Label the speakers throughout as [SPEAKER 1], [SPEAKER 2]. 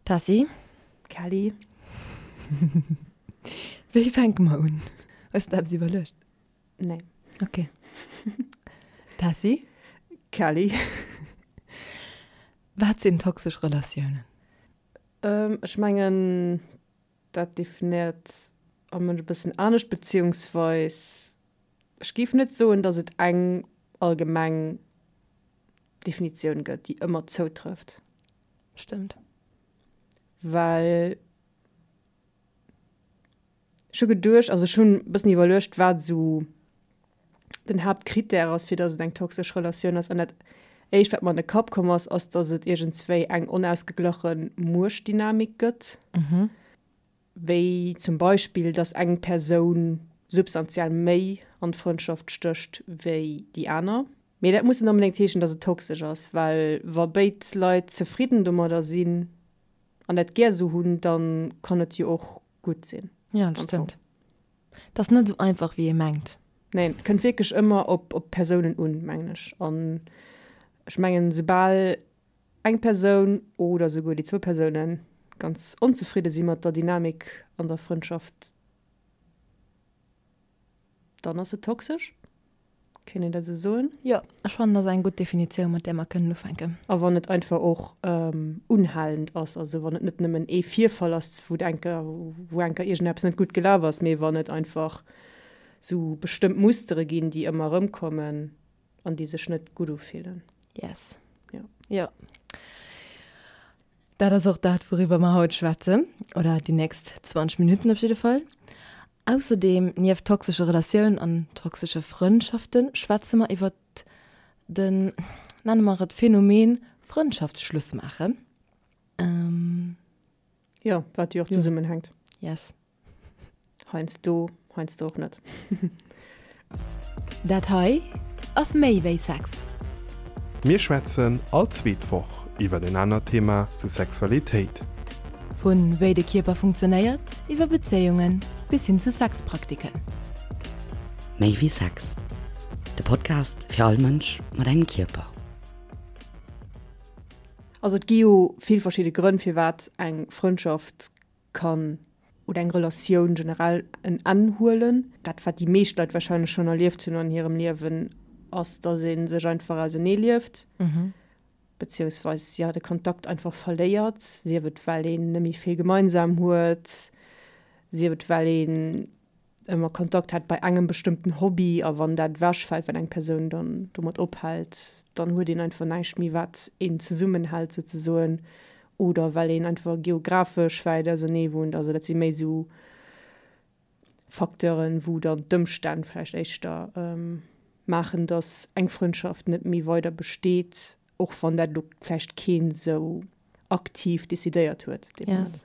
[SPEAKER 1] Tessy.
[SPEAKER 2] Kelly.
[SPEAKER 1] Wéi fänke mer un? Hues de eppes iwwerluecht?
[SPEAKER 2] Nee.
[SPEAKER 1] Ok. Tessy.
[SPEAKER 2] Kelly.
[SPEAKER 1] Wat sinn toxesch Relatiounen?
[SPEAKER 2] Ech mengen, dat definéiert all Mënsch e bëssen anescht, beziehungsweis ech géif net soen, datt et eng allgemeng Definitioun gëtt, déi ëmmer zoutrëfft.
[SPEAKER 1] Stëmmt.
[SPEAKER 2] Well ech hu geduecht, also ech hunn e bëssen iwwerluecht, wat esou den Haaptkrittär ass, fir datt et eng toxesch Relatioun ass. An dat éischt, wat mer an de Kapp komm ass, ass, datt et iergendswéi eng onausgeglache Muechtdynamik gëtt. Wéi zum Beispill, datt eng Persoun substantiell méi an d'Frëndschaft stécht wéi déi aner. Mee dat muss net onbedéngt heeschen, datt et toxesch ass, well wa béid Leit zefridden domadder sinn an dat gär esou hunn, da kann et jo och gutt sinn.
[SPEAKER 1] Jo, dat stëmmt. Et ass net esou einfach, wéi ee mengt.
[SPEAKER 2] Neen, et kënnt wierklech ëmmer op d'Persounen un, mengen ech. An ech mengen, soubal eng Persoun oder souguer déi zwou Persoune ganz onzefridde si mat der Dynamik an der Frëndschaft, dann ass se toxesch. Kéint een dat esou soen?
[SPEAKER 1] Jo, ech fannen, dat ass eng gutt Definitioun, mat där mer kënnen ufänken.
[SPEAKER 2] A wann et einfach och unhalend ass, also wann et net nëmmen ee Virfall ass, wou enker, wou enker iergendeppes net gutt gelaf ass, mee wann et einfach esou bestëmmt Mustere ginn, déi ëmmer erëmkommen an déi sech net gutt ufillen.
[SPEAKER 1] Yes.
[SPEAKER 2] Jo.
[SPEAKER 1] Jo. Dat ass och dat, wouriwwer mer haut schwätzen, oder déi nächst 20 Minutten op jidde Fall. Ausserdeem, nieft toxesche Relatiounen an toxesche Frëndschaften, schwätze mer iwwer den, nenne mer et Phänomen Frëndschaftsschluss maachen.
[SPEAKER 2] Jo, wat jo och zesummenhänkt.
[SPEAKER 1] Yes.
[SPEAKER 2] Heiansdo, heiansdo och net.
[SPEAKER 1] Dat hei ass méi wéi Sex.
[SPEAKER 3] Mir schwätzen all zweet Woch iwwert en anert Thema zu Sexualitéit.
[SPEAKER 1] Vu wéi de Kierper funktionéiert, iwwer Bezéiungen bis hin zu Sexpraktiken.
[SPEAKER 4] Méi wéi Sex, de Podcast fir all Mënsch mat engem Kierper.
[SPEAKER 2] Also et gi jo vill verschidde Grënn firwat eng Frëndschaft kann oder eng Relatioun generell en Enn huelen. Dat wat déi meescht Leit wahrscheinlech schonn erlieft hunn an hirem Liewen, ass datt ee sech einfach ausenee lieft, beziehungsweis jo de Kontakt einfach verléiert, sief et well een net méi vill gemeinsam huet, sief et well een ëmmer Kontakt hat bei engem bestëmmten Hobby a wann dat ewechfält, well eng Persoun dann domat ophält, dann huet een einfach näischt méi wat een zesummenhält souzesoen oder well een einfach geographesch wäit ausernee wunnt. Also dat si méi esou Facteuren, wou dann d'Ëmstänn vläicht éischter maachen, datt eng Frëndschaft net méi weider besteet, och wann dat elo vläicht keen esou aktiv decidéiert huet dee Moment.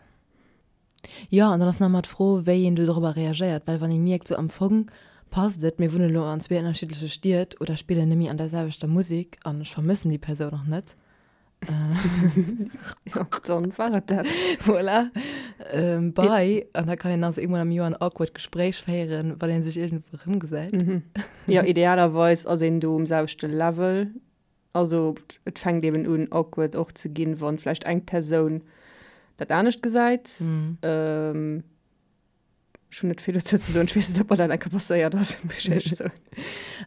[SPEAKER 1] Jo, an dann ass nach ëmmer d'Fro, wéi een do dorobber reagéiert, well wann ee mierkt, sou am Fong passt et, mir wunnen elo an zwee ënnerschiddleche Stied oder spillen net méi an der selwechter Musek an ech vermëssen déi Persoun och net.
[SPEAKER 2] Jo, dann war et dat.
[SPEAKER 1] Voilà. Bye. An da kann een also eemol am Joer en awkward Gespréich féieren, wann ee sech iergendwou erëmgesäit.
[SPEAKER 2] Jo, idealerweis ass een do um selwechte Level. Also et fänkt eben un awkward och ze ginn, wann vläicht eng Persoun dat anescht gesäit. Mm. Ech hunn net vill dozou ze soen. Ech weess net, ob mer dat eng Kéier passéiert ass, muss ech éierlech soen.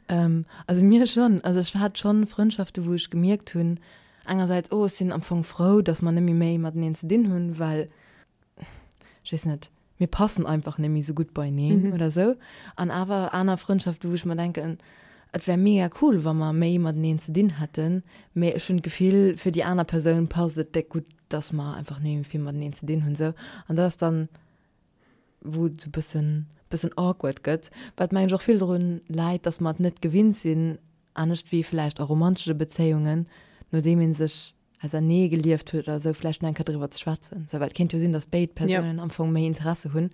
[SPEAKER 1] Ähm, also mir schonn. Also ech hat schonn Frëndschaften, wou ech gemierkt hunn, engersäits, oh, ech sinn am Fong frou, datt mer net méi méi mateneen ze dinn hunn, well, ech weess net, mir passen einfach net méi sou gutt beieneen oder sou. An awer aner Frëndschaften, wou ech mer denken, et wär mega cool, wa mer méi mateneen ze dinn hätten, mee ech hunn d'Gefill, fir déi aner Persoun passt et déck gutt, dass mer einfach net méi vill mateneen ze dinn hunn, sou. An dat ass dann, wou et sou bëssen, bëssen awkward gëtt, wat mengen ech och vill drun läit, dass mer et net gewinnt sinn, anescht wéi vläicht a romantesche Bezéiungen, nodeem ee sech ausernee gelieft huet oder esou, vläicht nach eng Kéier driwwer ze schwätzen. Sou, well et kéint jo sinn, datt béid Persounen am Fong méi Interesse hunn.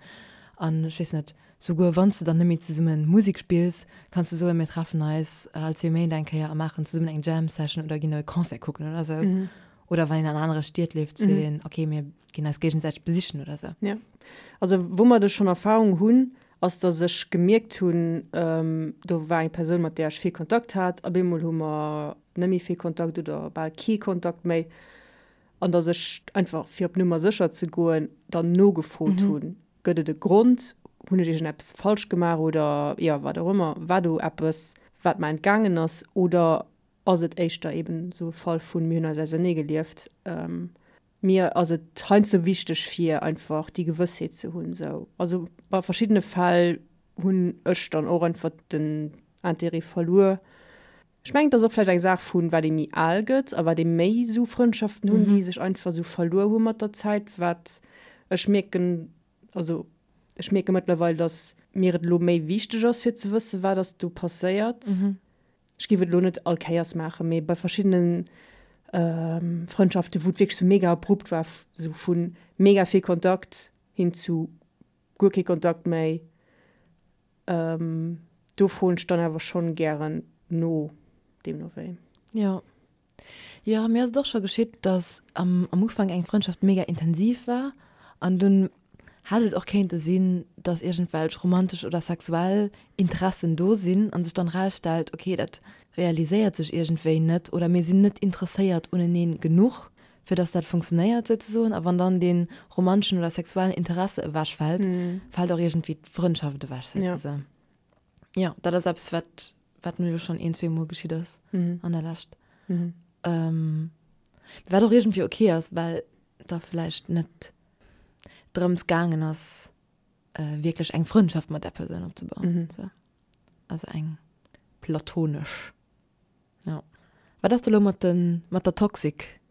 [SPEAKER 1] An ech weess net, souguer wann s de dann net méi zesumme Musek spills, kanns de soen, mir treffen eis all zwee Méint eng Kéier a maachen zesummen eng Jam Session oder ginn e Concert kucken oder esou. Oder wann een an anere Stied lieft, seet een, okay, mir ginn eis géigesäiteg besichen oder esou.
[SPEAKER 2] Jo. Also woumat ech schonn Erfahrung hunn, ass datt ech gemierkt hunn, do war eng Persoun, mat där ech vill Kontakt hat, op eemol hu mer net méi vill Kontakt oder bal kee Kontakt méi. An dass ech einfach, fir op Nummer sécher ze goen, dann nogefrot hunn, Gëtt et e Grond? Hunn ech iergendeppes falsch gemaach oder, jo, wat och ëmmer? War do eppes, wat mer entgaangen ass? Oder ass et éischter eben esou e Fall vun, mir hunn eis auserneegelieft? Mir ass et heiansdo wichteg, fir einfach déi Gewëssheet ze hunn esou. Also bei verschiddene Fäll hunn ech dann och einfach den Intérêt verluer. Ech mengen, et ass och vläicht eng Saach vun, wat ee méi al gëtt a wat ee méi esou Frëndschaften hunn, déi sech einfach esou verluer hu mat der Zäit. Wat ech mierken, also ech mierke mëttlerweil, datt mir et elo méi wichteg ass, fir ze wëssen, wat ass do passéiert. Ech géif et elo net all Kéiers maachen, mee bei verschiddene Frëndschaften, wou et wierklech sou mega abrupt war, sou vu mega vill Kontakt hin zu guer kee Kontakt méi, Do froen ech dann awer schonn gären no, deemno wéi.
[SPEAKER 1] Jo. Jo, mir ass et och scho geschitt, dass am am Ufank eng Frëndschaft mega intensiv war an dunn hätt et och kéinte sinn, dass iergendwelch romantesch oder sexuell Interessen do sinn an sech dann erausstellt, okay, dat realiséiert sech iergendwéi net oder mir sinn net interesséiert uneneen genuch, fir dass dat funktionéiert souzesoen, a wann dann dee romanteschen oder sexuellen Interesse ewechfält, fält och iergendwéi d'Frëndschaft ewech souzesoen. Jo, dat ass eppes, wat, wat mir elo schonn een, zweemol geschitt ass an der Lescht. Wat och iergendwéi ok ass, well da vläicht net drëms gaangen ass, wierklech eng Frëndschaft mat där Persoun opzebauen, sou. Also eng platonesch. Ja. Wat ass da lo mat den, mat der Toxic?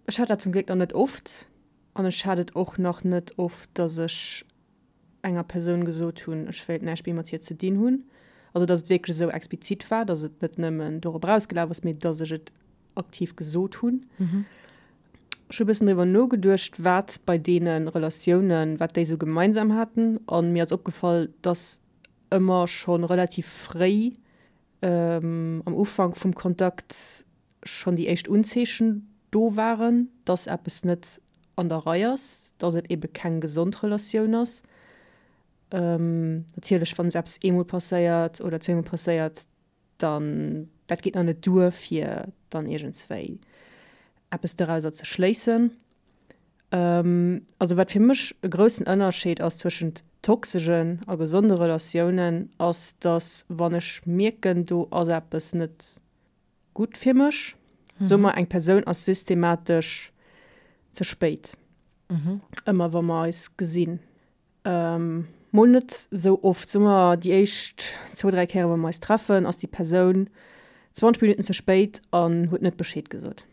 [SPEAKER 2] Ech hat dat zum Gléck nach net oft an ech hat et och nach net oft, dass ech enger Persoun gesot hunn, ech wéilt näischt méi mat hir ze dinn hunn. Also dass et wierklech esou explizit war, dass et net nëmmen dorop erausgelaf ass, mee dass ech et aktiv gesot hunn. Ech hu e bëssen driwwer nogeduecht, wat bei deene Relatiounen, wat déi esou gemeinsam haten an mir ass opgefall, dass ëmmer scho relativ fréi am Ufank vum Kontakt schonn déi éischt Unzeechen do waren, dass eppes net an der Rei ass, dass et ebe keng gesond Relatioun ass. Natierlech, wann eppes eemol passéiert oder zweemol passéiert, dann dat geet nach net duer, fir dann iergendswéi eppes dorauser ze schléissen. Also wat fir mech e groussen Ënnerscheed ass zwëschent toxegen a gesonde Relatiounen, ass dass wann ech mierken, do ass eppes net gutt fir mech, soe mer eng Persoun ass systematesch ze spéit, ëmmer wa mer eis gesinn, mol net sou oft, soe mer déi éischt zwou, dräi Kéiere wa mer eis treffen, ass déi Persoun 20 Minutten ze spéit an huet net Bescheed gesot.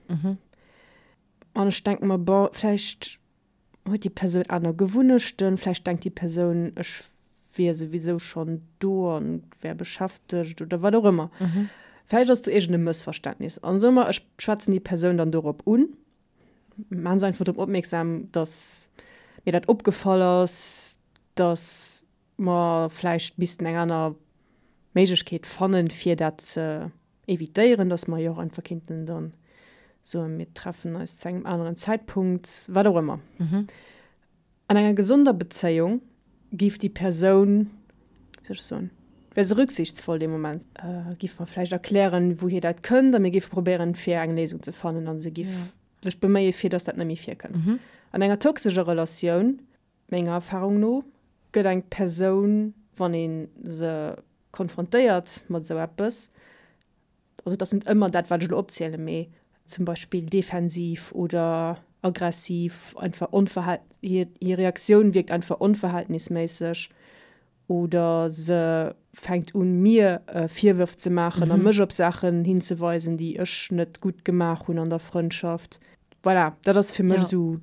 [SPEAKER 2] An ech denke mer, bon, vläicht huet déi Persoun aner Gewunnechten, vläicht denkt déi Persoun, ech wier souwisou schonn do an wär beschäftegt oder wat och ëmmer. Vläicht ass do iergend e Mëssverständnis. An soe mer, ech schwätzen déi Persoun dann dorop un, maache se einfach drop opmierksam, dass mir dat opgefall ass, dass mer vläicht missten eng aner Méiglechkeet fannen, fir dat ze evitéieren, dass mer jo och einfach kéinten dann soen, mir treffen eis zu engem aneren Zäitpunkt, wat och ëmmer. An enger gesonder Bezéiung géif déi Persoun, wéi soll ech soen, wär se rücksichtsvoll dee Moment, géif mer vläicht erklären, wouhier dat kënnt a mir géife probéieren, fir eng Léisung ze fannen a se géif sech beméien, fir dass dat net méi virkënnt. An enger toxescher Relatioun Menger Erfahrung no gëtt eng Persoun, wann ee se konfrontéiert mat esou eppes, also et ass net ëmmer dat, wat ech elo opzielen, mee zum Beispill defensiv oder aggressiv, einfach onverhal-, hir Reaktioun wierkt einfach onverhältnisméisseg oder se fänkt un mir Virwërf ze maachen a mech op Saachen hinzeweisen, déi ech net gutt gemaach hunn an der Frëndschaft. Voilà, dat ass fir mech esou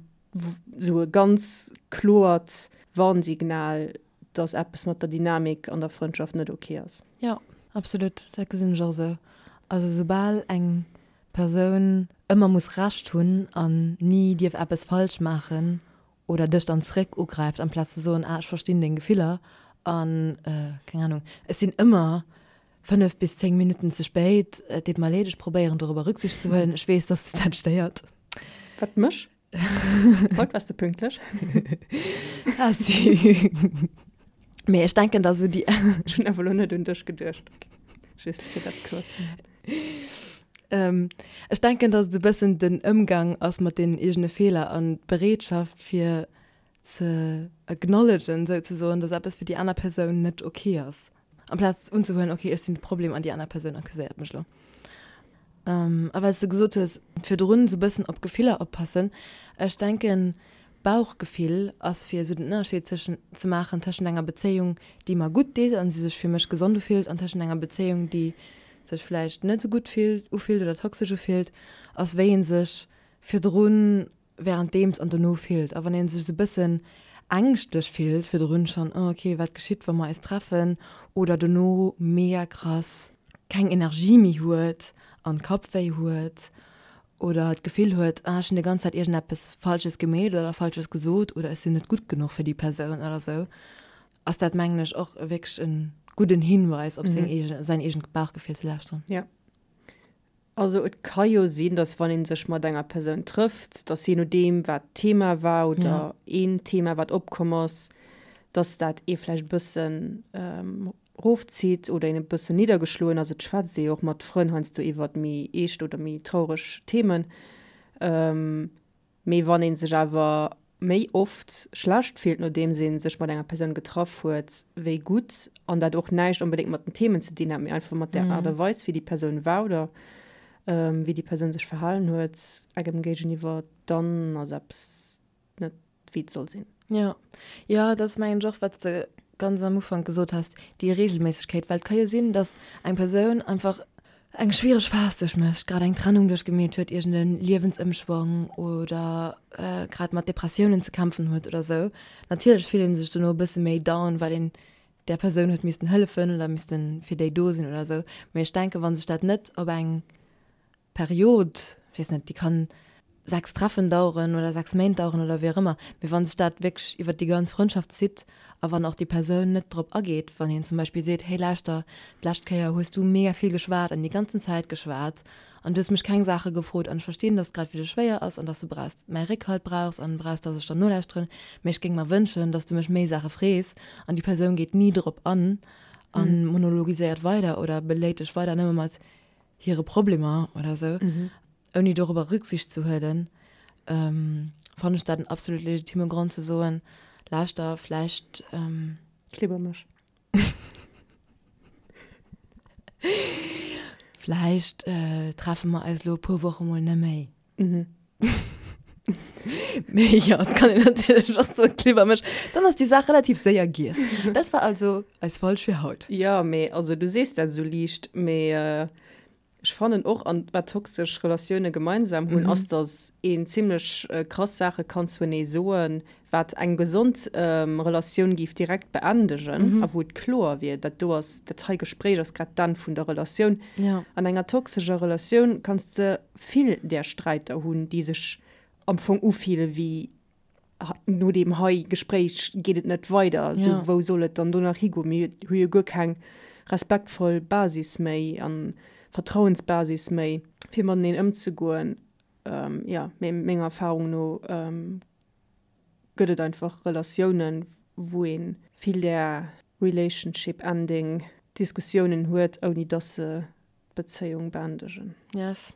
[SPEAKER 2] esou e ganz kloert Warnsignal, dass eppes mat der Dynamik an der Frëndschaft net ok ass.
[SPEAKER 1] Jo, absolut, dat gesinn ech och esou. Also soubal eng Persoun ëmmer muss Recht hunn an ni dierf eppes falsch maachen oder dech dann zréck ugräift amplaz ze soen, ah ech verstinn deng Gefiller an keng Ahnung, ech sinn ëmmer 5 bis 10 Minutten ze spéit, et deet mer leed, ech probéieren dorobber Rücksicht ze huelen, ech weess, dass dech dat stéiert.
[SPEAKER 2] Wat, mech? Haut waars de pünktlech.
[SPEAKER 1] Ah si. Mee ech denken da sou déi.
[SPEAKER 2] Ech hunn awer elo net un dech geduecht, just fir dat kloer ze maachen.
[SPEAKER 1] Ech denken, dass et e bëssen den Ëmgang ass mat deenen eegene Feeler an d'Bereetschaft fir ze acknowledgen souzesoen, dass eppes fir déi aner Persoun net ok ass. Amplaz unzehuelen, ok, ech sinn de Problem an déi aner Persoun accuséiert mech elo. A well s de gesot hues, virdrun esou bëssen op Gefiller oppassen, ech denken, Bauchgefill ass fir esou den Ënnerscheed tëschent ze maachen tëschent enger Bezéiung, déi mer gutt deet an se sech fir mech gesond ufillt an tëschent enger Bezéiung, déi sech vläicht net esou gutt fillt, ufillt oder toxesch ufillt, ass wéi ee sech virdrun währenddeems an dono fillt. A wann ee sech esou e bëssen ängschtlech fillt virdrun schonn, oh ok, wat geschitt, wa mer eis treffen, oder dono mega krass keng Energie méi huet an Kappwéi huet oder d'Gefill huet, ah ech hunn déi ganz Zäit iergendeppes Falsches gemeet oder Falsches gesot oder ech sinn net gutt genuch fir déi Persoun oder esou, ass dat mengen ech och wierklech e gudden Hinweis op seng eegen, säin eegent Bauchgefill ze lauschteren.
[SPEAKER 2] Jo. Also et ka jo sinn, datt wann ee sech mat enger Persoun trëfft, datt jee nodeem wat d'Thema war oder een Thema wat opkomm ass, datt dat ee vläicht e bëssen rofzitt oder een e bëssen niddergeschloen ass. Et schwätzt ee jo och mat Frënn heiansdo iwwert méi eescht oder méi traureg Themen. Mee wann ee sech awer méi oft schlecht fillt, nodeems ee sech mat enger Persoun getraff huet, wéi gutt, an dat och näischt onbedéngt mat den Themen ze dinn hat, mee einfach mat der Aart a Weis, wéi déi Persoun war oder wéi déi Persoun sech verhalen huet engem géigeniwwer, dann ass eppes net wéi et soll sinn.
[SPEAKER 1] Jo, jo, dat ass mengen ech och, wat s de ganz am Ufank gesot has, déi Reegelméissegkeet, well et ka jo sinn, datt eng Persoun einfach eng schwiereg Phas duerchmécht, grad eng Trennung duerchgemeet huet, iergend e Liewensëmschwong oder grad mat Depressiounen ze kämpfen huet oder sou. Natierlech fillt ee sech dono e bësse méi down, well een där Persoun huet missten hëllefen oder misste fir déi do sinn oder sou. Mee ech denken, wa sech dat net op eng Period, ech weess net, déi kann 6 Treffen daueren oder 6 Méint daueren oder wéi och ëmmer, mee wa sech dat wierklech iwwert déi ganz Frëndschaft zitt a wann och déi Persoun net drop ageet, wann een zum Beispill seet, hey lauschter, d'lescht Kéier hues du mega vill geschwat an déi ganzen Zäit geschwat an du hues mech keng Saache gefrot an ech verstinn, dass et grad fir dech schwéier ass an dass du brauchs mäi Réckhalt brauchs an brauchs, dass ech der nolauschteren, mee ech géing mer wënschen, dass du mech méi Saache frees an déi Persoun geet ni drop an a monologiséiert weider oder beléit dech weider nëmme mat hire Problemer oder sou, ouni dorobber Rücksicht ze huelen, fannen ech dat en absolut legitime Grond ze soen, lauschter, vläicht.
[SPEAKER 2] Klibber mech.
[SPEAKER 1] Vläicht treffe mer eis elo e puer Woche mol net méi. Mee jo, et kann een natierlech och soen, klibber mech, dann ass déi Saach relativ séier giess. Dat war also eis Folg fir haut.
[SPEAKER 2] Jo, mee also du sees dat esou liicht, mee ech fannen och, an wat toxesch Relatioune gemeinsam hunn, ass, datt een zimlech krass Saache kann zuenee soen, wat eng gesond Relatioun géif direkt beendegen a wou et kloer wier, dat do ass, dat hei Gespréich ass grad d'Enn vun der Relatioun. An enger toxescher Relatioun kanns de vill där Sträiter hunn, déi sech am Fong ufille wéi no deem hei Gespréich geet et net weider, sou wou soll et dann do nach higoen, mir hu jo guer keng respektvoll Basis méi a Vertrauensbasis méi, fir mateneen ëmzegoen. Jo, mee menger Erfarung no gëtt et einfach Relatiounen, wou ee vill där Relationship ending Diskussiounen huet, ouni dass se d'Bezéiung beendegen.
[SPEAKER 1] Yes.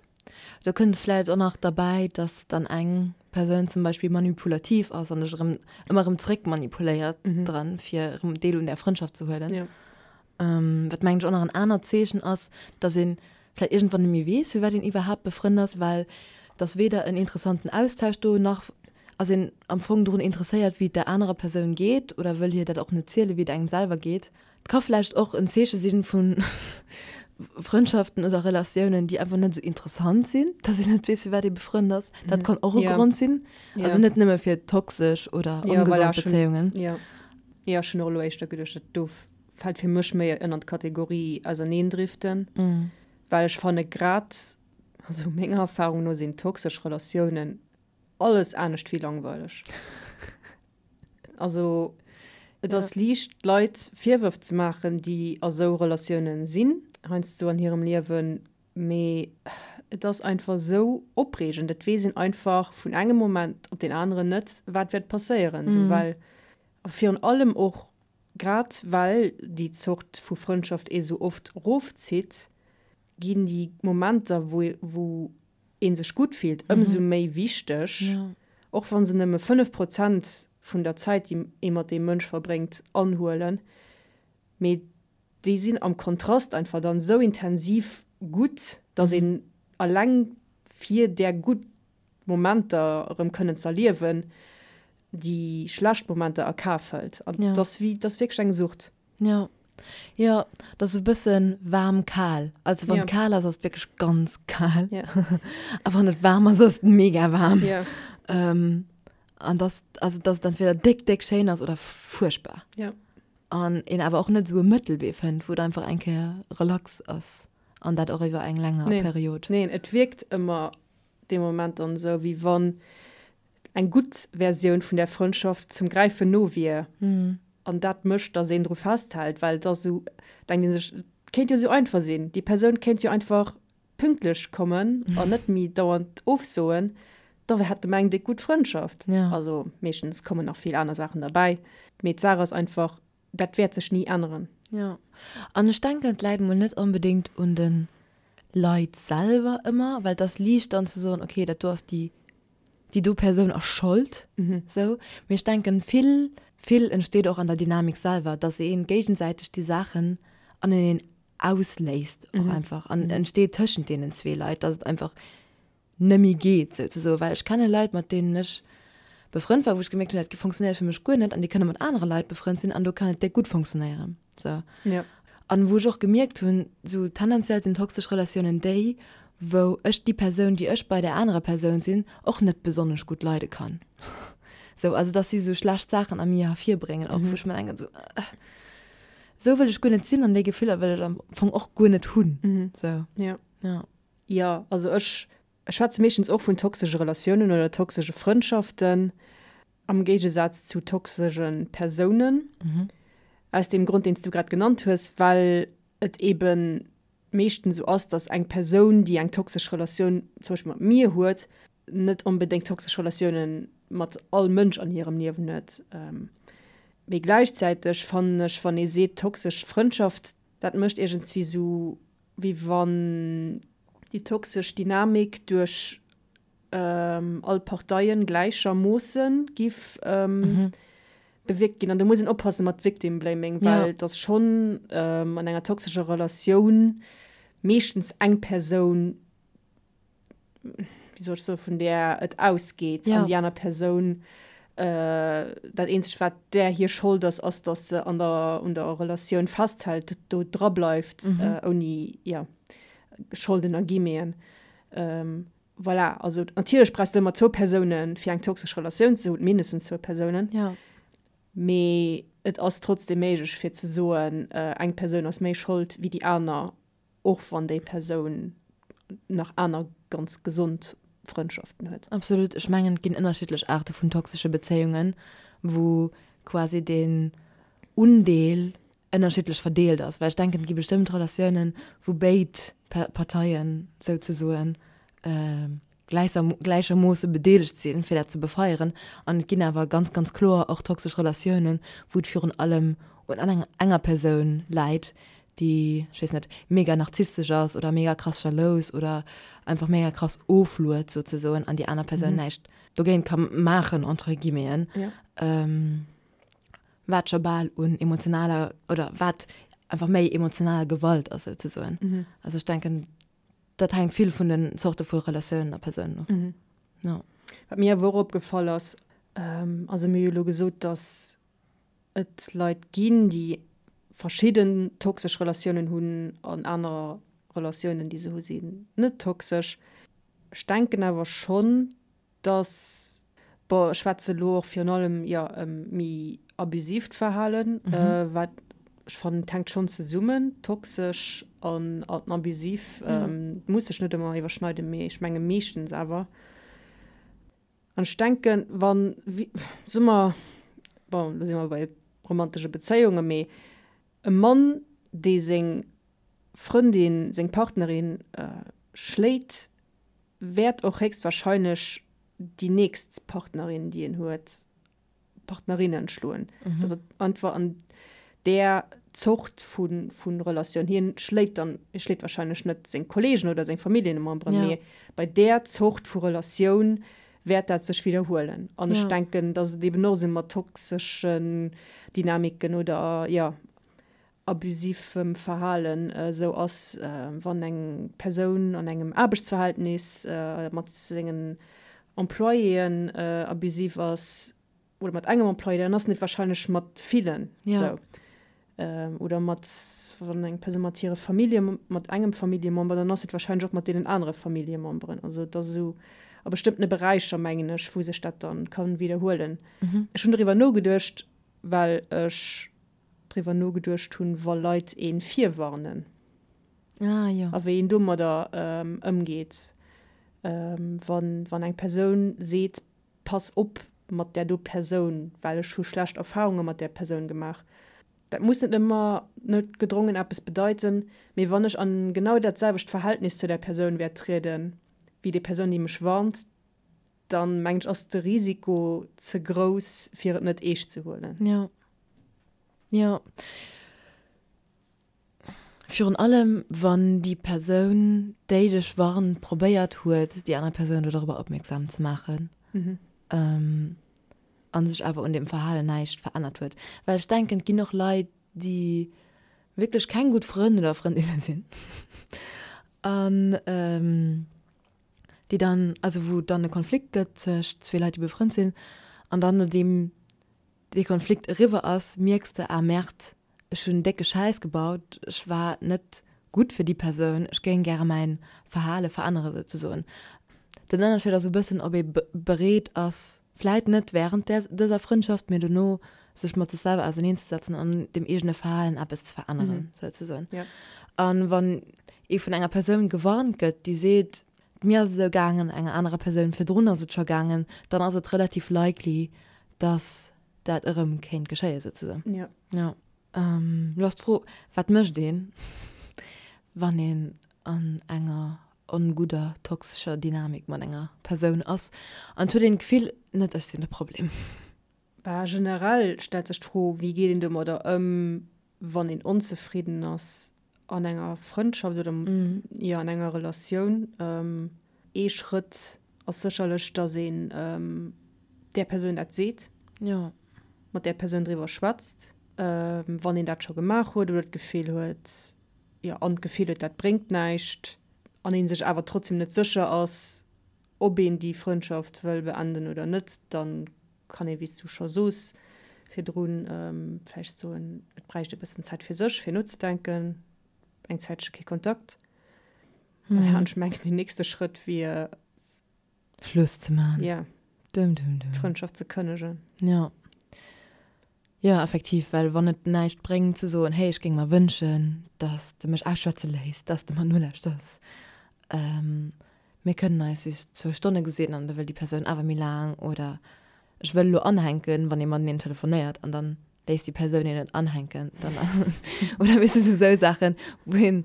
[SPEAKER 1] Do kënnt vläit och nach derbäi, dass dann eng Persoun zum Beispill manipulativ ass an dech erëm ëmmer erëm zréck manipuléiert dran, fir erëm Deel un där Frëndschaft ze huelen. Wat mengen ech och nach en anert Zeechen ass, dass een vläit iergendwann net méi weess, firwat een iwwerhaapt befrënnt ass, well et ass weder en interessanten Austausch do, nach ass een am Fong drun interesséiert, wéi et der anerer Persoun geet oder wëll hir dat och net zielen, wéi et engem selwer geet. Et ka vläicht och en Zeeche si vu Frëndschaften oder Relatiounen, déi einfach net esou interessant sinn, dass een net weess, firwat ee befrënnt ass. Dat kann och e Grond sinn. Also net nëmme fir toxesch oder ongesond Bezéiungen.
[SPEAKER 2] Jo, ech hunn och elo éischter geduecht, dat do fält fir mech méi ënner d'Kategorie Auserneendriften, well ech fanne grad, also menger Erfahrung no sinn toxesch Relatiounen alles anescht wéi langweileg. Also et ass liicht Leit Virwërf ze maachen, déi a sou Relatiounen sinn, heiansdo an hirem Liewen, mee et ass einfach sou opreegend, et weess een einfach vun engem Moment op deen aneren net, wat wäert passéieren, sou well a virun allem och Grad well déi Zort vu Frëndschaft ee sou oft rofzitt. Ginn déi Momenter, wou wou ee sech gutt fillt, ëmsou méi wichteg, och wa se nëmme 5 Prozent vun der Zäit, déi ee mat deem Mënsch verbréngt, anhuelen. Mee déi sinn am Kontrast einfach dann esou intensiv gutt, dass een alleng fir där gutt Momenter erëm kënnen z'erliewen, déi schlecht Momenter a Kaf hëlt. An
[SPEAKER 1] Ja.
[SPEAKER 2] 't ass wéi, 't ass wierklech eng Sucht.
[SPEAKER 1] Ja. Jo, 't ass e bësse waarm-kal. Also wann
[SPEAKER 2] Ja.
[SPEAKER 1] et kal ass, ass et wierklech ganz kal.
[SPEAKER 2] Ja.
[SPEAKER 1] A wann et waarm ass, ass et mega waarm.
[SPEAKER 2] Ja.
[SPEAKER 1] Ähm, an dass, also dass et entweder déck, déck schéin ass oder fuerchtbar.
[SPEAKER 2] Ja.
[SPEAKER 1] An een awer och net esou e Mëttelwee fënnt, wou et einfach eng Kéier relax ass. An dat och iwwer eng länger
[SPEAKER 2] Nee.
[SPEAKER 1] Period.
[SPEAKER 2] Neen, et wierkt ëmmer dee Moment dann esou, wéi wann eng gutt Versioun vun där Frëndschaft zum Gräifen no wier. An dat mécht, datt een dru festhält, well et ass esou, denkt ee sech, et kéint jo esou einfach sinn, déi Persoun kéint jo einfach pünktlech kommen an net méi dauernd ofsoen, da hätte mer eng déck gutt Frëndschaft.
[SPEAKER 1] Ja.
[SPEAKER 2] Also meeschtens kommen nach vill aner Saachen derbäi, mee d'Saach ass einfach, dat wäert sech ni änneren.
[SPEAKER 1] Jo, an ech denken, et läit mol net onbedéngt un de Leit selwer ëmmer, well et ass liicht dann ze soen, okay, dat do ass déi, déi do Persoun ass Schold, sou. Mee ech denken, vill, vill entsteet och an der Dynamik selwer, dass ee géigesäiteg déi Saachen aneneen ausléist och einfach an entsteet tëschent deenen zwee Leit, dass et einfach nëmmi geet souzesoen, well ech kenne Leit, mat deenen ech befrënnt war, wou ech gemierkt hunn, dat funktionéiert fir mech guer net an déi kënne mat anere Leit befrënnt sinn an do kann et déck gutt funktionéieren. Sou.
[SPEAKER 2] Ja.
[SPEAKER 1] An wou ech och gemierkt hunn, sou tendenziell sinn toxesch Relatiounen déi, wou ech déi Persoun, déi ech bei där anerer Persoun sinn, och net besonnesch gutt leide kann. Sou, also dass si sou schlecht Saachen a mir hervirbréngen och, wou ech mer denken, sou, sou wëll ech guer net sinn an déi Gefiller wëll ech am Fong och guer net hunn. Sou.
[SPEAKER 2] Ja.
[SPEAKER 1] Ja.
[SPEAKER 2] Jo, also ech schwätze meeschtens och vun toxesche Relatiounen oder toxesche Frëndschaften, am Géigesaz zu toxesche Persounen. Aus deem Grond, deen s du grad genannt hues, well et eebe meeschtens esou ass, datt eng Persoun, déi eng toxesch Relatioun zum Beispill mat mir huet, net onbedéngt toxesch Relatioune mat all Mënsch an hirem Liewen huet. Mee gläichzäiteg fannen ech, wann ee seet toxesch Frëndschaft, dat mécht iergendswéi esou wéi wann déi toxesch Dynamik duerch all Parteien gläichermoosse giff bewierkt ginn. An do muss een oppasse mat Victim Blaming, well et ass schonn an enger toxescher Relatioun meeschtens eng Persoun, wéi soll ech soen, vun där et ausgeet an déi aner Persoun, dat eenzegt wat där hir Schold ass, ass datt se an der, un der Relatioun festhält, do dra bleift, ouni, jo, Scholden a Guillemeten. Voilà, also natierlech brauchs de ëmmer zwou Persounen, fir eng toxesch Relatioun ze hunn, mindestens zwou Persounen. Mee et ass trotzdeem méiglech fir ze soen, eng Persoun ass méi Schold wéi déi aner Och wann déi Persoun nach aner ganz gesond Frëndschaften huet.
[SPEAKER 1] Absolut. Ech mengen, et ginn ënnerschiddlech Aarte vun toxesche Bezéiungen, wou quasi den Undeel ënnerschiddlech verdeelt ass. Well ech denken, et gi bestëmmt Relatiounen, wou béid Parteien souzesoen gläichermoosse bedeelegt sinn, fir dat ze befeieren. An et ginn awer ganz, ganz kloer och toxesch Relatiounen, wou et virun allem un enger Persoun läit, déi, ech weess net, mega narzisstesch ass oder mega krass jalous oder einfach mega krass ofluet souzesoen an déi aner Persoun näischt dogéint ka maachen, entre guillemeten, wat scho bal un emotionaler oder wat einfach méi emotional Gewalt ass souzesoen. Also ech denken, dat hänkt vill vun den Zorte vu Relatiounen a Persounen of.
[SPEAKER 2] Jo. Wat mir awer och opgefall ass, also mir hu jo elo gesot, datt et Leit ginn, déi verschidden toxesch Relatiounen hunn an aner Relatiounen, déi se hu sinn net toxesch. Ech denken awer schonn, dass, bon, ech schwätze elo och virun allem, jo, ëm méi abusiivt Verhalen, wat ech fannen, et hänkt schonn zesummen, toxesch an abusiv muss sech net ëmmer iwwerschneiden, mee ech menge meeschtens awer. An ech denken, wann, soe mer, bon, elo si mer bei romantesche Bezéiungen, mee e Mann, dee seng Frëndin, seng Partnerin schléit, wäert och héchstwahrscheinlech déi nächst Partnerin, déi en huet, Partnerinnen schloen. Dass et einfach an där. Zort vu Relatioun, hien schléit dann, hie schléit wahrscheinlech net seng Kollegen oder seng Familljememberen, mee bei där Zort vu Relatioun wäert dat sech widderhuelen. An ech denken, datt et eben och esou mat toxeschen Dynamiken oder, jo, abusivem Verhalen esou ass, wann eng Persoun an engem Aarbechtsverhältnis mat sengen Employéen abusiv ass oder mat engem Employé, dann ass en et wahrscheinlech mat villen esou. Oder mat, wann eng Persoun mat hire Famillje, mat engem Familljemember, dann ass et wahrscheinlech och mat deenen anere Familljememberen. Also et ass esou a bestëmmtene Beräicher, mengen ech, wou sech dat dann ka widderhuelen. Ech hunn doriwwer nogeduecht, well ech driwwer nogeduecht hunn, wa Leit ee virwarnen.
[SPEAKER 1] Ah, jo.
[SPEAKER 2] A wéi een domadder ëmgeet, wann, wann eng Persoun seet, Pass op mat där do Persoun, well ech hu schlecht Erfarunge mat där Persoun gemaach. Dat muss net ëmmer noutgedrongen eppes bedeiten, mee wann ech an genau dat selwecht Verhältnis zu där Persoun wäert trieden, wéi déi Persoun, déi mech warnt, dann mengen ech ass de Risiko ze grouss fir et net eescht ze huelen.
[SPEAKER 1] Jo. Jo. Virun allem wann déi Persoun, déi dech warnt, probéiert huet, déi aner Persoun do dorobber opmierksam ze maachen a sech awer un deem Verhalen näischt verännert huet. Well ech denken, et ginn och Leit, déi wierklech keng gutt Frënn oder Frëndinne sinn an déi dann, also wou et dann e Konflikt gëtt tëscht zwee Leit, déi befrënnt sinn, an dann nodeem dee Konflikt eriwwer ass, mierks de, ah Merde, ech hunn décke Schäiss gebaut, ech war net gutt fir déi Persoun, ech géing gäre mäin Verhale verännere souzesoen. Den Ënnerscheed ass e bëssen, ob ee bereet ass, vläit net wärend där dëser Frëndschaft, mee dono sech mat sech selwer auserneenzesetzen an un dem eegene Verhalen eppes ze veränneren, souzesoen. An wann ee vun enger Persoun gewarnt gëtt, déi seet, mir ass et esou gaangen, enger anerer Persoun virdrun ass et scho gaangen, dann ass et relativ likely, dass dat erëm kéint geschéien, souzesoen.
[SPEAKER 2] Jo.
[SPEAKER 1] Jo. Lo ass d'Fro, wat mécht een, wann een an enger ongudder, toxescher Dynamik mat enger Persoun ass an et huet een d'Gefill, net ech sinn de Problem?
[SPEAKER 2] Bah, generell stellt sech d'Fro, wéi geet een domadder ëm, wann een onzefridden ass an enger Frëndschaft oder jo an enger Relatioun. Ee Schrëtt ass sécherlech, datt een där Persoun dat seet, mat där Persoun driwwer schwätzt, wann een dat scho gemaach huet oder d'Gefill huet, jo an d'Gefill huet, dat bréngt näischt an ee sech awer trotzdem net sécher ass, ob een déi Frëndschaft wëll beenden oder net, da kann ee, wéi s du scho soos virdrun, vläicht soen, et bräicht e bëssen Zäit fir sech, fir nozedenken, eng Zäitche kee Kontakt. An ech mengen, deen nächste Schrëtt wier.
[SPEAKER 1] Schluss ze maachen.
[SPEAKER 2] Jo.
[SPEAKER 1] Dum, dum, dum.
[SPEAKER 2] D'Frëndschaft ze kënnegen.
[SPEAKER 1] Jo. Jo, effektiv, well wann et näischt bréngt ze soen, hey, ech géing mer wënschen, dass de mech ausschwätze léiss, dass de mer nolauschters, mir kënnen eis just zwou Stonne gesinn an da wëll déi Persoun awer méi laang oder ech wëll elo anhänken, wann ee mateneen telefonéiert an dann léisst déi Persoun een net anhänken, dann oder weess de, sou Saachen, wou een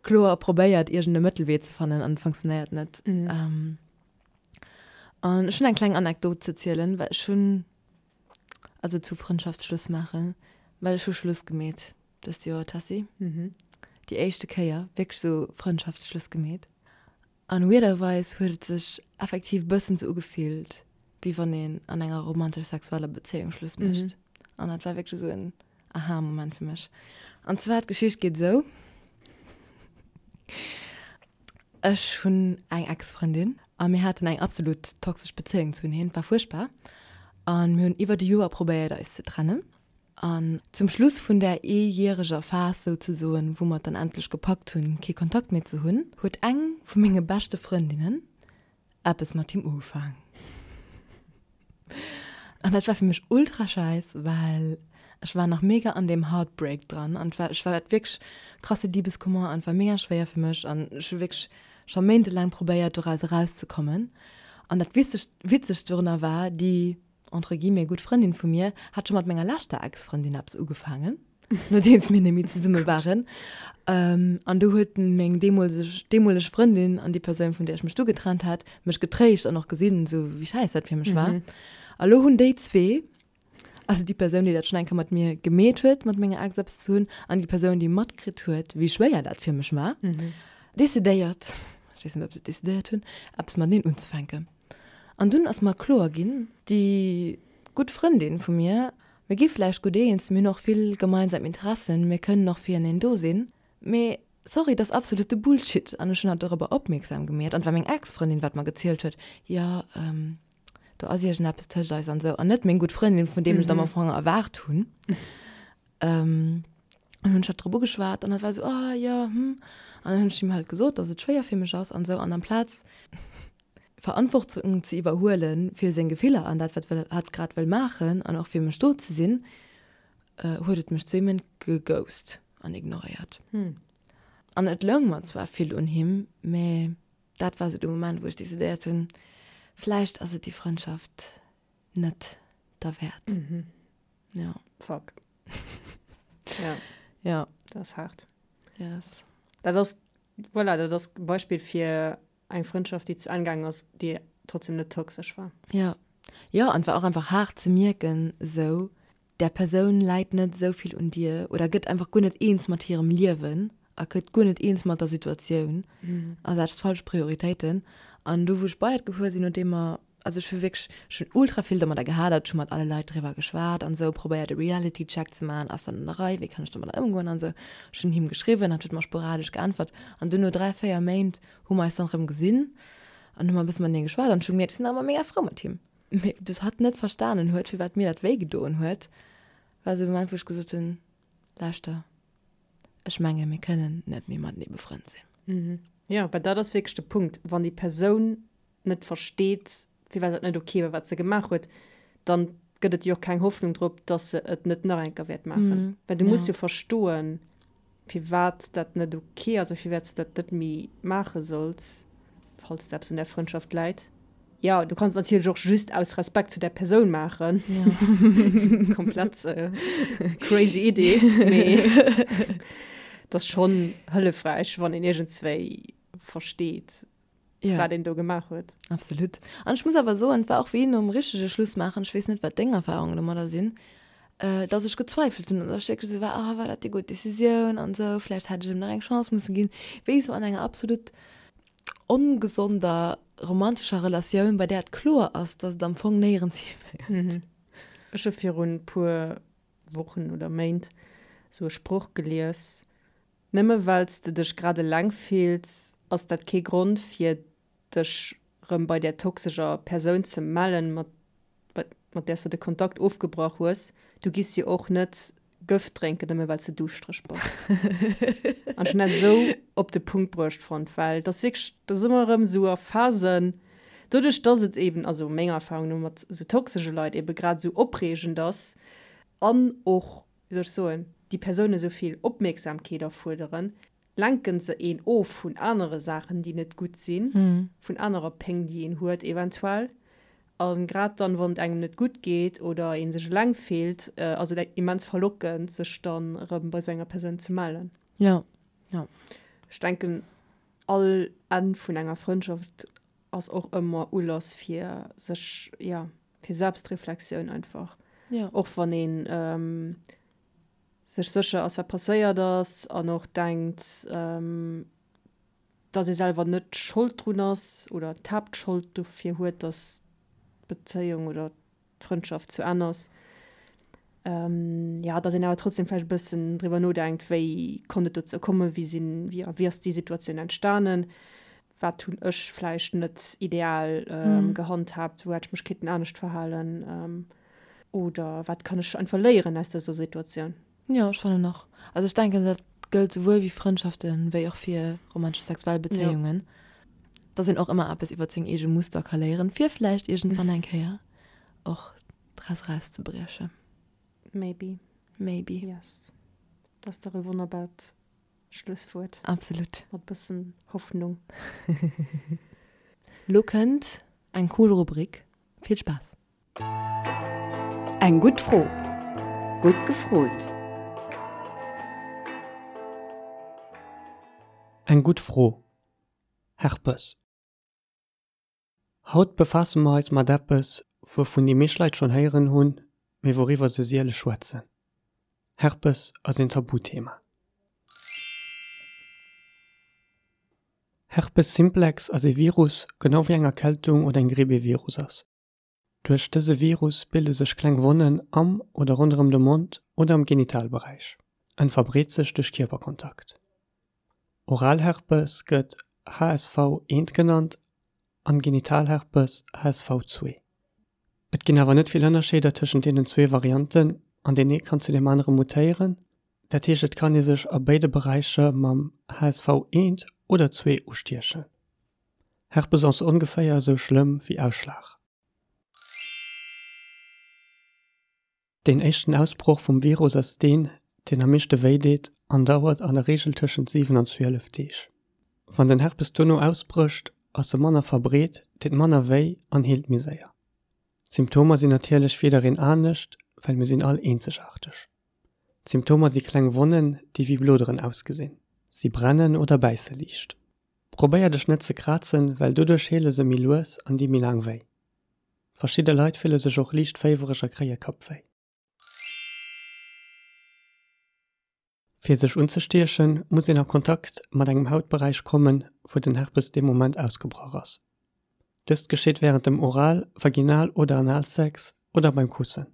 [SPEAKER 1] kloer probéiert iergend e Mëttelwee ze fannen an et funktionéiert net. An ech hunn eng kleng Anekdot ze zielen, well ech hunn Also zu Frëndschaft Schluss maachen, well ech hu Schluss gemeet dëst Joer, Tessy.
[SPEAKER 2] Mhm.
[SPEAKER 1] Déi éischte Kéier wierklech sou Frëndschaft Schluss gemeet. An weirderweis huet et sech effektiv bëssen sou ugefillt, wéi wann een an enger romantesch-sexueller Bezéiung Schluss mécht. An dat war wierklech sou en Aha-Moment fir mech. An zwar, d'Geschicht geet esou. Ech hunn eng Ex-Frëndin a mir haten eng absolut toxesch Bezéiung zuneen. Et war fuerchtbar a mir hunn iwwert e Joer probéiert eis ze trennen. An zum Schluss vun där eejäreger Phas souzesoen, wou mer et dann endlech gepackt hunn, kee Kontakt méi ze hunn, huet eng vu menge beschte Frëndinnen eppes mat him ugefaang. An dat war fir mech ultra scheiss, well ech war nach mega an deem Heartbreak dran an war ech war wierklech krasse Liebeskummer an war mega schwéier fir mech an ech hu wierklech scho méintelaang probéiert doraus erauszekommen. An dat witzegst witzegst dorunner war, déi entre guillemets gutt Frëndin vu mir hat scho mat menger leschter Ex-Frëndin eppes ugefaangen. nodeems mir net méi zesumme waren. Ähm, an du huet meng deemolseg, deemoleg Frëndin an déi Persoun, vun där ech mech du getrennt hat, mech getréischt an och gesinn, sou wéi schäiss dat fir mech war. A lo hunn déi zwee. Also déi Persoun, déi dat schonn eng Kéier mat mir gemeet huet, mat menger Ex eppes ze hunn, an déi Persoun, déi matkritt huet, wéi schwéier dat fir mech war, decidéiert, ech weess net, ob se et decidéiert hunn, eppes mateneen unzefänken. An dunn ass mer kloer ginn, déi gutt Frëndin vu mir, mir gi vläicht gutt eens, mir hunn och vill gemeinsam Interessen, mir kënnen och fireneen do sinn, mee sorry, dat ass absolute Bullshit. An ech hunn hatt dorobber opmierksam gemeet, an et war meng Ex-Frëndin, wat mer gezielt huet, jo, do ass iergendeppes tëscht eis an esou, an net meng gutt Frëndin, vun deem ech et am Ufank erwaart hunn. An hunn ech hatt drop ugeschwat an hatt war esou, ah jo, hm. An dann hunn ech him halt gesot, dass et schwéier fir mech ass an esou, an amplaz Verantwortung ze iwwerhuele fir seng Gefiller an dat, wat hatt grad wëll maachen an och fir mech do ze sinn, huet et mech zwee Méint geghost an ignoréiert. An et loung mer zwar vill un him, mä dat war sou de Moment, wou ech decidéiert hunn, vläicht ass et déi Frëndschaft net derwäert.
[SPEAKER 2] Ja. Fuck.
[SPEAKER 1] Ja. Ja.
[SPEAKER 2] Dat ass haart.
[SPEAKER 1] Yes.
[SPEAKER 2] Dat ass, voilà, dat ass e Beispill fir Eng Frëndschaft, déi zu Enn gaangen ass, déi trotzdem net toxesch war.
[SPEAKER 1] Jo. Jo, an et war och einfach haart ze mierken, esou, där Persoun läit net esou vill un dir oder gëtt einfach guer net eens mat hirem Liewen a gëtt guer net eens mat der Situatioun a setzt falsch Prioritéiten. An du, wou ech bei et gefuer sinn, nodeem mer Also ech hu wierklech, ech hunn ultra vill domadder gehadert, ech hu mat alle Leit driwwer geschwat an esou, probéiert e Reality Check ze maachen, ass dat an der Rei, wéi kann ech domadder ëmgoen an esou. Ech hunn him geschriwwen, hatt huet mer sporadesch geäntwert an dunn no 3, 4 Méint hu mer eis dann erëm gesinn an hu mer e bësse matenee geschwat an ech hu gemierkt, ech sinn nach ëmmer mega frou mat him. Mee dass hatt net verstanen huet, firwat mir dat wéi gedoen huet, war esou e Moment, wou ech gesot hunn, lauschter, ech menge mir kënnen net méi matenee befrënnt
[SPEAKER 2] sinn. Jo, well dat ass wierklech de Punkt, wann déi Persoun net versteet, firwat dat net ok war, wat se gemaach huet, dann gëtt et jo och keng Hoffnung drop, dass se et net nach eng Kéier wäert maachen. Well du muss jo verstoen, firwat dat net ok ass a firwat s de dat net méi maache solls, falls der eppes un där Frëndschaft läit. Jo, du kanns et natierlech och just aus Respekt zu där Persoun maachen. Komplett crazy Idee, mee et ass schonn hëllefräich, wann een iergendswéi versteet,
[SPEAKER 1] Ja.
[SPEAKER 2] wat een do gemaach huet.
[SPEAKER 1] Absolut. An ech muss awer soen, et war och wéi nom richtege Schluss maachen, ech weess net, wat deng Erfahrungen domadder sinn, äh, dass ech gezweifelt hunn an dass ech wierklech esou war, ah, war dat déi gutt Decisioun an esou, vläicht hätt ech em nach eng Chance musse ginn. Wéi esou an enger absolut ongesonder romantescher Relatioun, bei där et kloer ass, dass et am Fong néierens hiféiert.
[SPEAKER 2] Ech hu virun puer Wochen oder Méint esou e Sproch gelies, Nëmme well s de dech grad eleng fills, ass dat kee Grond fir dech rëm bei där toxescher Persoun ze mellen, mat mat där s de de Kontakt ofgebrach hues. Du giss jo och net Gëft drénken, nëmme well s de duuschtereg bass. An ech hunn dat esou op de Punkt bruecht fonnt, well et ass wierklech, et ass ëmmer erëm esou a Phasen, doduerch dass et eben, also menger Erfahrung no, mat esou toxesche Leit ebe grad esou opreegend ass an och wéi soll ech soen, déi Persoune sou vill Opmierksamkeet erfuerderen, lenken se een of vun anere Saachen, déi net gutt sinn, vun anerer Péng, déi een huet eventuell. A grad dann, wann et engem net gutt geet oder ee sech eleng fillt, ass et immens verlockend, sech dann erëm bei sou enger Persoun ze mellen.
[SPEAKER 1] Jo, jo.
[SPEAKER 2] Ech denken, all Enn vun enger Frëndschaft ass och ëmmer Ulass fir sech, jo, fir Selbstreflexioun einfach.
[SPEAKER 1] Ja.
[SPEAKER 2] Och wann een ähm, sech sécher ass, wat passéiert ass an och denkt, ähm, dass ee selwer net Schold drun ass oder d'Haaptschold dofir huet, dass d'Bezéiung oder d'Frëndschaft zu Enn ass. Ähm, ja, dass een awer trotzdem vläicht e bëssen driwwer nodenkt, wéi konnt et dozou kommen, wéi sinn, wéi, wéi ass déi Situatioun entstanen. Wat hunn ech vläicht net ideal gehandhaabt, wou hätt ech mech kéinten anescht verhalen oder wat kann ech einfach léieren aus dëser Situatioun?
[SPEAKER 1] Jo, ech fannen och. Also ech denken, dat gëllt souwuel wéi Frëndschaften, wéi och fir romantesch sexuell Bezéiungen, dass een och ëmmer eppes iwwer seng eege Muster ka léieren, fir vläicht iergendwann eng Kéier och draus erauszebriechen.
[SPEAKER 2] Maybe.
[SPEAKER 1] Maybe.
[SPEAKER 2] Yes. Dat ass dach e wonnerbart Schlusswuert.
[SPEAKER 1] Absolut.
[SPEAKER 2] Mat bëssen Hoffnung.
[SPEAKER 1] Lo kënnt eng cool Rubrik. Vill Spaass!
[SPEAKER 4] Eng gutt Fro. Gutt gefrot!
[SPEAKER 5] Eng gutt Fro. Herpes. Haut befaasse mer eis mat eppes, wouvun déi meescht Leit schonn héieren hunn, mee wouriwwer se siele schwätzen. Herpes ass een Tabuthema. Herpes simplex ass ee Virus, genau wéi eng Erkältung oder eng Gripp ee Virus ass. Duerch dëse Virus bilde sech kleng Wonnen am oder ronderëm de Mond oder am Genitalberäich. En verbreet sech duerch Kierperkontakt. Oralherpes gëtt HSV 1 genannt an Genitalherpes HSV 2. Et ginn awer net vill Ënnerscheeder tëschent deenen zwee Varianten an deen ee kann zu deem anere mutéieren. Dat heescht et kann ee sech a béide Beräicher mam HSV 1 oder 2 ustiechen. Herpes ass ongeféier esou schlëmm wéi Ausschlag. Deen éischten Ausbroch vum Virus ass deen, deen am meeschte wéi deet an dauert an der Reegel tëschent 7 an 12 Deeg. Wann den Herpes dono ausbrécht, ass e manner verbreet, deet manner wéi an heelt méi séier. D'Symptomer sinn natierlech fir jiddereen anescht, well mir sinn all eenzegaarteg. D'Symptomer si kleng Wonnen, déi wéi Bloderen ausgesinn. Si brennen oder bäisse liicht. Probéier dech net ze krazen, well doduerch heele se méi lues an di méi laang wéi. Verschidde Leit fille sech och liicht féiwereg a kréie Kappwéi. Fir sech unzestiechen, muss een a Kontakt mat engem Hautberäich kommen, wou den Herpes dee Moment ausgebrach ass. Dëst geschitt wärend dem Oral-, Vaginal oder Analsex oder beim Kussen.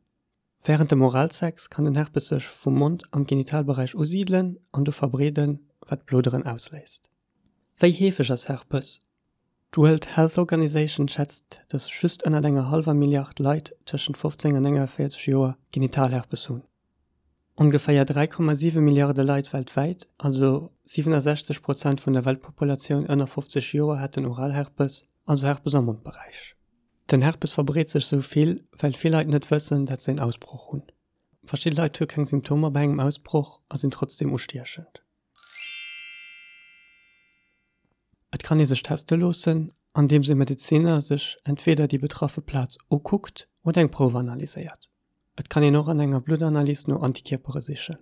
[SPEAKER 5] Wärend dem Oralsex kann den Herpes sech vum Mond am Genitalberäich usidelen an do verbreeden, wat Bloderen ausléist. Wéi heefeg ass Herpes? D'World Health Organization schätzt, datt just ënnert enger hallwer Milliard Leit tëschent 15 an 49 Joer Genitalherpes hunn. Ongeféier 3,7 Milliarde Leit weltwäit, also 67 Prozent vun der Weltpopulatioun ënner 50 Joer hätten Oralherpes, also Herpes am Mondberäich. Den Herpes verbreet sech sou vill, well vill Leit net wëssen, dat se een Ausbroch hunn. Verschidde Leit hu keng Symptomer bei engem Ausbroch a sinn trotzdeem ustiechend. Et kann ee sech teste loossen, andeems e Medeziner sech entweeder déi betraffe Plaz ukuckt oder eng Prouf analyséiert. Et kann een och an enger Bluttanalys no Antikierpere sichen.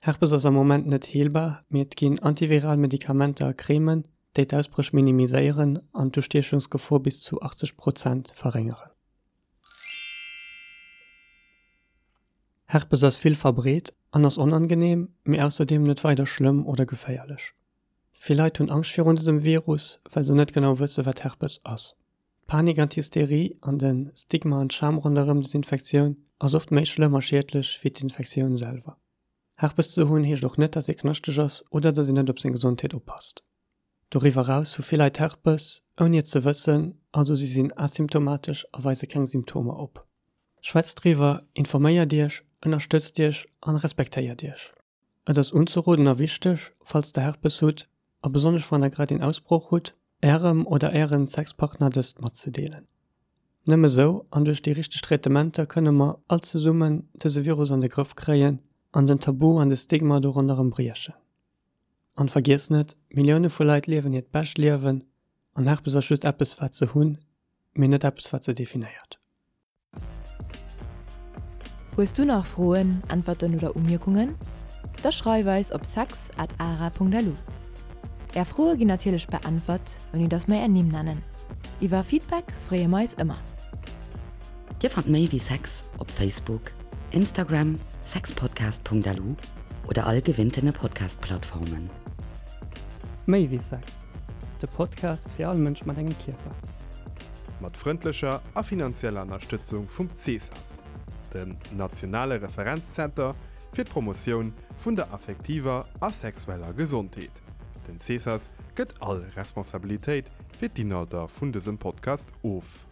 [SPEAKER 5] Herpes ass am Moment net heelbar, mee et ginn antiviral Medikamenter a Cremen, déi d'Ausbréch minimiséieren an d'Ustiechungsgefor bis zu 80 Prozent verréngeren. Herpes ass vill verbreet an ass onangeneem, mee ausserdeem net weider schlëmm oder geféierlech. Vill Leit hunn Angscht virun dësem Virus, well se net genau wësse wat Herpes ass. D'Panik an d'Hysterie an de Stigma an d'Scham ronderëm des Infektioun ass oft méi schlëmm a schiedlech wéi d'Infektioun selwer. Herpes ze hunn heescht och net, dass ee knaschteg ass oder dass een net op seng Gesondheet oppasst. Doriwwer eraus hu vill Leit Herpes, ouni et ze wëssen, also si sinn asymptomatesch a weise keng Symptomer op. Schwätzt driwwer, informéiert iech, ënnerstëtzt iech an respektéiert iech. Et ass unzeroden a wichteg, falls der Herpes hutt, a besonnesch wann der grad een Ausbroch hutt, ärem oder ären Sexpartner dëst matzedeelen. Nëmme sou an duerch déi richteg Traitementer kënne mer all zesummen dëse Virus an de Grëff kréien an den Tabu an de Stigma do ronderëm briechen. An vergiesst net, Millioune vu Leit liewen hiert bescht Liewen an Herpes ass just eppes wat se hunn, mee net eppes wat se definéiert.
[SPEAKER 1] Hues du nach Froen, Äntwerten oder Umierkungen? Da schreif eis op sex at ara.lu. Är Froe ginn natierlech beäntwert, ouni dass mer är Nimm nennen. Iwwer Feedback freeë mer eis ëmmer.
[SPEAKER 4] Dir fannt méi wéi Sex op Facebook, Instagram, sexpodcast.lu oder all gewinntene Podcast-Plattformen.
[SPEAKER 5] Méi wéi Sex, de Podcast fir all Mënsch mat engem Kierper.
[SPEAKER 3] Mat frëndlecher a finanzieller Ënnerstëtzung vum CESAS, dem nationale Referenzzenter fir d'Promotioun vun der affektiver a sexueller Gesondheet. Den CESAS gëtt all Responsabilitéit fir d'Inhalter vun dësem Podcast of.